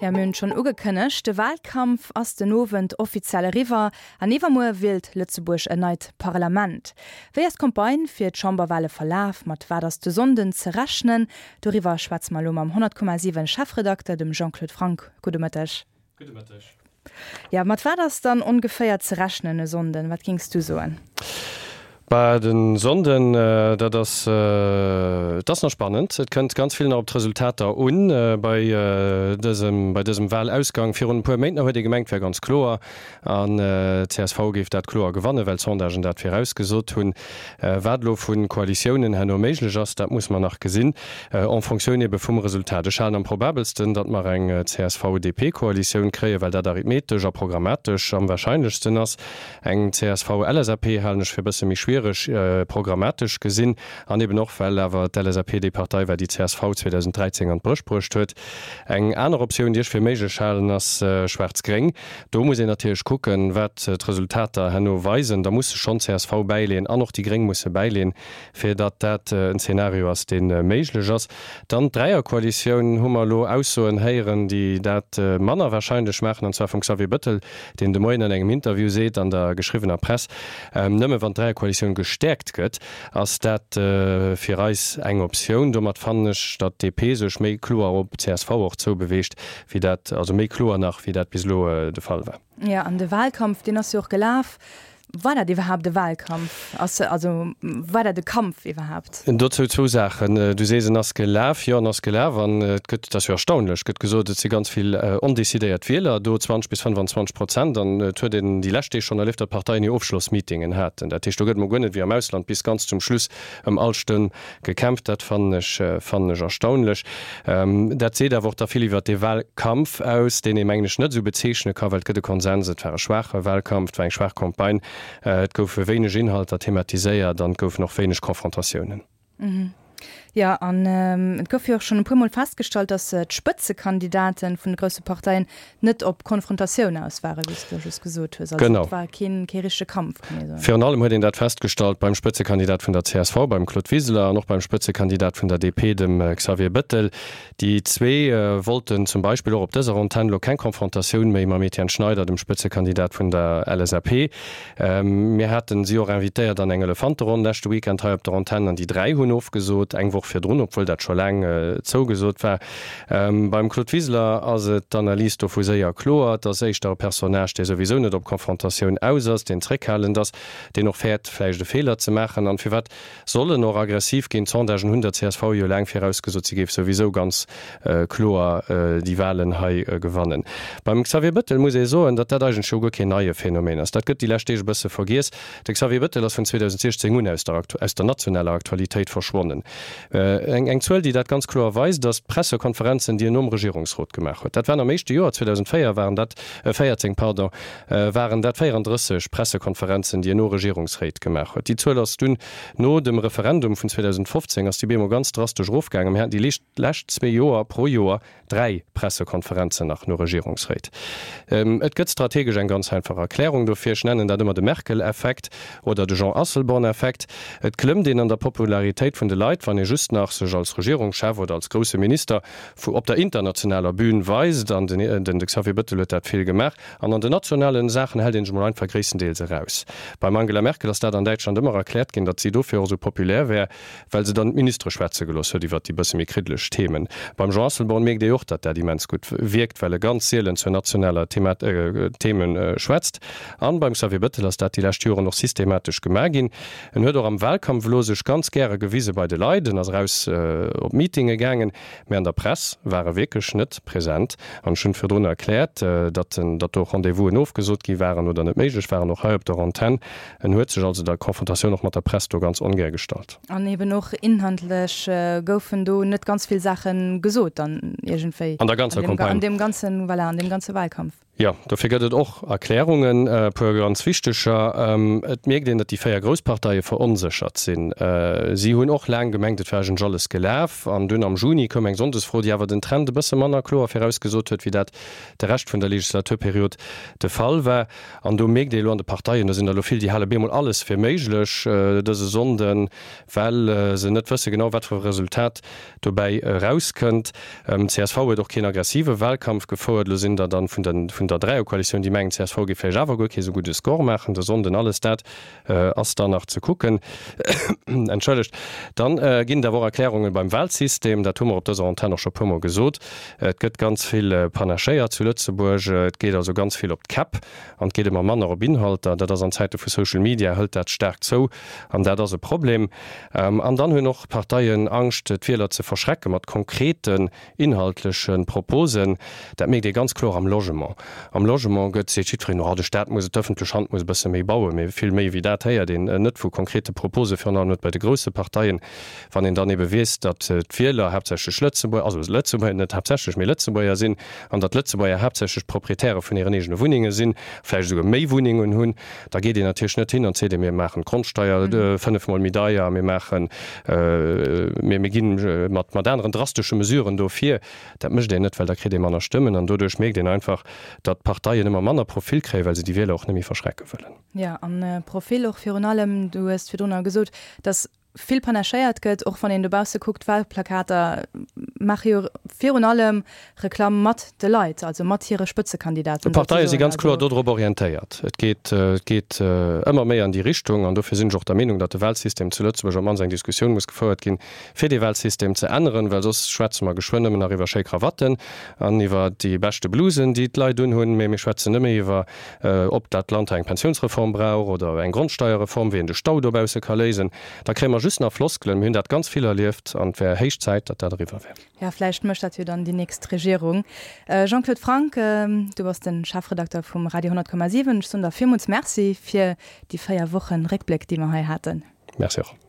Jo, mir hunn et schonn ugekënnegt, de Wahlkampf ass den Owend offiziell eriwwer an iwwermuer wielt Lëtzebuerg en neit Parlament. Wéi ass d'Campagne fir d'Chamberwahle verlaf? Mat wat ass de Sonnden ze rechnen? Doriwwer schwätze mer elo mam 100,7 Chefredakter, dem Jean-Claude Franck. Gudde Mëtteg. Gudde Mëtteg. Jo, mat wat ass dann ongeféier ze rechnen e Sonnden? Wat géings du soen? Bah, de Sonnden, dat ass, et ass nach spannend. Et kënnt ganz vill nach op d'Resultater un bei dësem, bei dësem Wahlausgang. Virun e puer Méint nach huet ee gemengt, et wär ganz kloer an d'CSV géif dat kloer gewannen, well d'Sondagen dat virausgesot hunn. Wat elo vu Koalitiounen herno méiglech ass, dat muss mer nach gesinn, en Fonctioun ebe vum Resultat. Ech halen am probabelsten, datt mer eng CSV-DP-Koalitioun kréien, well dat arithmetesch a programmatesch am wahrscheinlechsten ass. Eng CSV-LSAP halen ech fir e bësse méi schwiereg, programmatesch gesinn, an eben och, well awer d'LSAP déi Partei war, déi d'CSV 2013 an d'Bréch bruecht huet. Eng aner Optioun, déi ech fir méiglech halen, ass Schwaarz-Gréng. Do muss een natierlech kucken, wat d'Resultater herno weisen. Da musse schonn csv bäileen an och déi Gréng musse bäileen, fir datt dat en Zeenario ass, dee méiglech ass. Dann d'Dräierkoalitioun, hu mer elo Aussoen héieren, déi dat manner wahrscheinlech maachen, an zwar vum Xavier Bëttel, deen de Moien an engem Interview seet an der geschriwwener Press, Nëmme wann d'Dräierkoalitioun gestäerkt gëtt, ass dat fir eis eng Optioun. Domat fannen ech, datt d'DP sech méi kloer op csv och zoubeweegt, wéi dat, also méi kloer nach, wéi dat bis elo de Fall war. Jo, an de Wahlkampf, deen ass jo och gelaf. War dat iwwerhaapt e Wahlkampf? Ass, also war dat e Kampf iwwerhaapt? Dozou zwou Saachen. Du sees, en ass gelaf. Jo, en ass gelaf an et gëtt, et ass jo erstaunlech, gëtt gesot, et si ganz vill ondecidéiert Wieler do, 20 bis 25 Prozent. An et huet een déi lescht Deeg schonn erlieft, datt d'Parteien hir Ofschlossmeetingen haten. Dat heescht, do gëtt emol guer net wéi am Ausland bis ganz zum Schluss ëm all Stëmm Gekämpft, dat fannen ech, fannen ech erstaunlech. Dat seet awer och da vill iwwert dee Wahlkampf aus, deen ee mengen ech net esou bezeechne ka, well et gëtt e Konsens, et war e schwaache Wahlkampf, et war eng schwaach Campagne, et goufe wéineg Inhalter thematiséiert an et goufen och wéineg Confrontatiounen. Jo, an et gouf jo och schonn e puermol festgestallt, datt d'Spëtzekandidaten vun de grousse Parteien net op Konfrontatioun aus waren, wéi s de just gesot hues. Also et war keen, kee richtege Kampf, kann ee soen. Virun allem huet een dat festgestallt beim Spëtzekandidat vun der csv, beim Claude Wiseler, an och beim Spëtzekandidat vun der DP, dem Xavier Bëttel. Déi zwee wollten zum Beispill och op dëser Antenn elo keng Konfrontatioun méi mam Etienne Schneider, dem Spëtzekandidat vun der LSAP. Mir haten si och invitéiert an eng Elefanteronn leschte Weekend hei op der Antenn an déi 3 hunn ofgesot, eng Woch virdrun, obwuel dat scho laang zougesot war. Beim Claude Wiseler ass et d'Analys dovu séier kloer, et ass éischter e Personnage, dee souwisou net op Konfrontatioun aus ass, deen zréckhalend ass, deen och fäert vläicht e Feeler ze maachen. An firwat Soll en och aggressiv ginn? D'Sondagen hunn der csv jo laang virausgesot, si géif souwisou ganz kloer déi Walen hei gewannen. Beim Xavier Bëttel muss ee soen, datt dat eigentlech jo guer keen neie Phänomen ass. Dat gëtt déi lescht Deeg e bësse vergiess. De Xavier Bëttel ass vun 2016 un aus der aus der nationaler Aktualitéit verschwonnen. Eng Zuel, déi dat ganz kloer weist, ass d'Pressekonferenzen, déi en nom Regierungsrot gemaach huet. Dat waren am éischte Joer, 2004 waren dat, 14, pardon, waren dat 34 Pressekonferenzen, déi en no Regierungsréit gemaach huet. Déi Zuel ass dunn no dem Referendum vun 2015 ass déi bemol ganz drastesch erofgaangen. Mir haten déi lescht zwee Joer pro Joer dräi Pressekonferenzen nach no Regierungsréit. Et gëtt strategesch eng ganz einfach Erklärung dofir. Ech nennen dat ëmmer de Merkel-Effekt oder de Jean Asselborn-Effekt. Et klëmmt een an der Popularitéit vun de Leit, wann ee just nach sech als Regierungschef oder als grousse Minister vu op der internationaler Bühn weist, an den de Xavier Bëttel huet dat vill gemaach, an an den nationalen Saachen hält een sech mol einfach gréisstendeels eraus. Beim Angela Merkel ass dat an Däitschland ëmmer erkläert ginn, datt si dofir och esou populär wär, well se dann d'Ministere schwätze gelooss huet iwwert déi bësse méi kriddeleg Themen. Beim Jean Asselborn mierkt ee och, datt dat immens gutt wierkt, well e ganz sielen zur nationaler Themen schwätzt. An beim Xavier Bëttel ass dat déi lescht Joren och systematesch gemaach ginn. En huet och am Wahlkampf elo sech ganz gäre gewise bei de Leit, en ass eraus op Meetinge gaangen, mä an der Press war e wierklech net present. An ech hunn virdrun erkläert, datt en, datt do Rendez-vousen ofgesot gi waren oder net méiglech waren, och hei op der Antenn. En huet sech also der Konfrontatioun och mat der Press do ganz ongär gestallt. An eben och inhaltlech goufen do net ganz vill Saache gesot dann iergendwéi. An der ganzer Campagne. An deem ganzen, voilà, an deem ganze Wahlkampf. Jo, dofir gëtt et och Erklärungen, e puer ganz wichteger. Et mierkt een, datt déi 4 grouss Parteie veronséchert sinn. Si hunn och laang gemengt, et wär. war eigentlech alles gelaf. An dunn am Juni koum eng Sonndesfro, déi awer den Trend e bësse manner kloer virausgesot huet, wéi dat de Rescht vun der Legislaturperiod de Fall war. An do mierkt ee elo an de Parteien, do sinn der elo vill, déi hale bemol alles fir méiglech dëse Sonnden, well se net wësse genau, wat fir e Resultat dobäi erauskënnt. Csv huet och keen aggressive Wahlkampf gefouert. Elo sinn der dann vun der vun der Dräierkoalitioun, déi mengen, csv géif vläicht awer guer kee sou gudde Score maachen de Sonnden. Alles dat ass dann nach ze kucken. Entschëllegt. Dann ginn et awer och Erklärungen beim Wahlsystem. Dat hu mer op dëser Antenn och scho puermol gesot. Et gëtt ganz vill panachéiert zu Lëtzebuerg. Et geet also ganz vill op d'Käpp an et geet ëmmer manner op Inhalter. Dat ass an Zäite vu Social Media hëlt dat staark zou an dat ass e Problem. An dann hunn och d'Parteien Angscht, d'Wieler ze verschrecke mat konkreten inhaltleche Proposen. Dat mierkt ee ganz kloer am Logement. Am Logement gëtt, seet jiddwereen, oh de Staat muss et, d'ëffentlech Hand muss e bësse méi bauen. Mee vill méi wéi dat héiert een net vu konkrete Propose, virun allem net bei de grousse Parteien. Wann een dann ebe weess, datt d'Wieler haaptsächlech Lëtzebuerger, also Lëtzebuerger, net haaptsächlech, mee Lëtzebuerger sinn, an datt d'Lëtzebuerger haaptsächlech d'Proprietäre vun hiren eegene Wunnenge sinn, vläicht esouguer méi Wunnengen hunn, da geet een natierlech net hin an seet, mir maachen d'Grondsteier fënnefmol méi deier, mir maachen, mir mir gi mat mat aneren drastesche Mesuren do vir. Dat mécht een net, well da kritt ee manner Stëmmen an doduerch mierkt een einfach, datt d'Parteien ëmmer manner Profil kréien, well se déi Wieler och net méi verschrecke wëllen. Jo, an Profil och virun allem, du hues virdrunner gesot, datt vill panachéiert gëtt, och wann een dobausse kuckt, d'Wahlplakater maache jo virun allem Reklamm mat de Leit, also mat hire Spëtzekandidaten D'Parteie si ganz kloer dodrop orientéiert. Et geet, et geet ëmmer méi an déi Richtung. An dofir sinn ech och der Meenung, datt de Wahlsystem zu Lëtzebuerg op d'mannst eng Diskussioun muss gefouert ginn, fir dee Wahlsystem ze änneren, well soss schwätze mer geschwënn nëmmen nach iwwer schéi Krawatten an iwwer déi beschte Blusen, déi d'Leit unhunn, mee mir schwätzen net méi iwwer ob dat Land hei eng Pensiounsreform brauch oder eng Grondsteierreform, wéi een de Stau dobausse ka léisen, da kréie mer just nach Floskelen. Mir hunn dat ganz vill erlieft an et wär héich Zäit, datt dat eriwwer wär. Jo, vläicht mécht dat jo dann déi nächst Regierung. Jean-Claude Franck, du bass de Chefredakter vum Radio 100,7. Ech soen der villmools Merci fir déi 4 Wochen Réckbléck, déi mer hei haten. Merci och.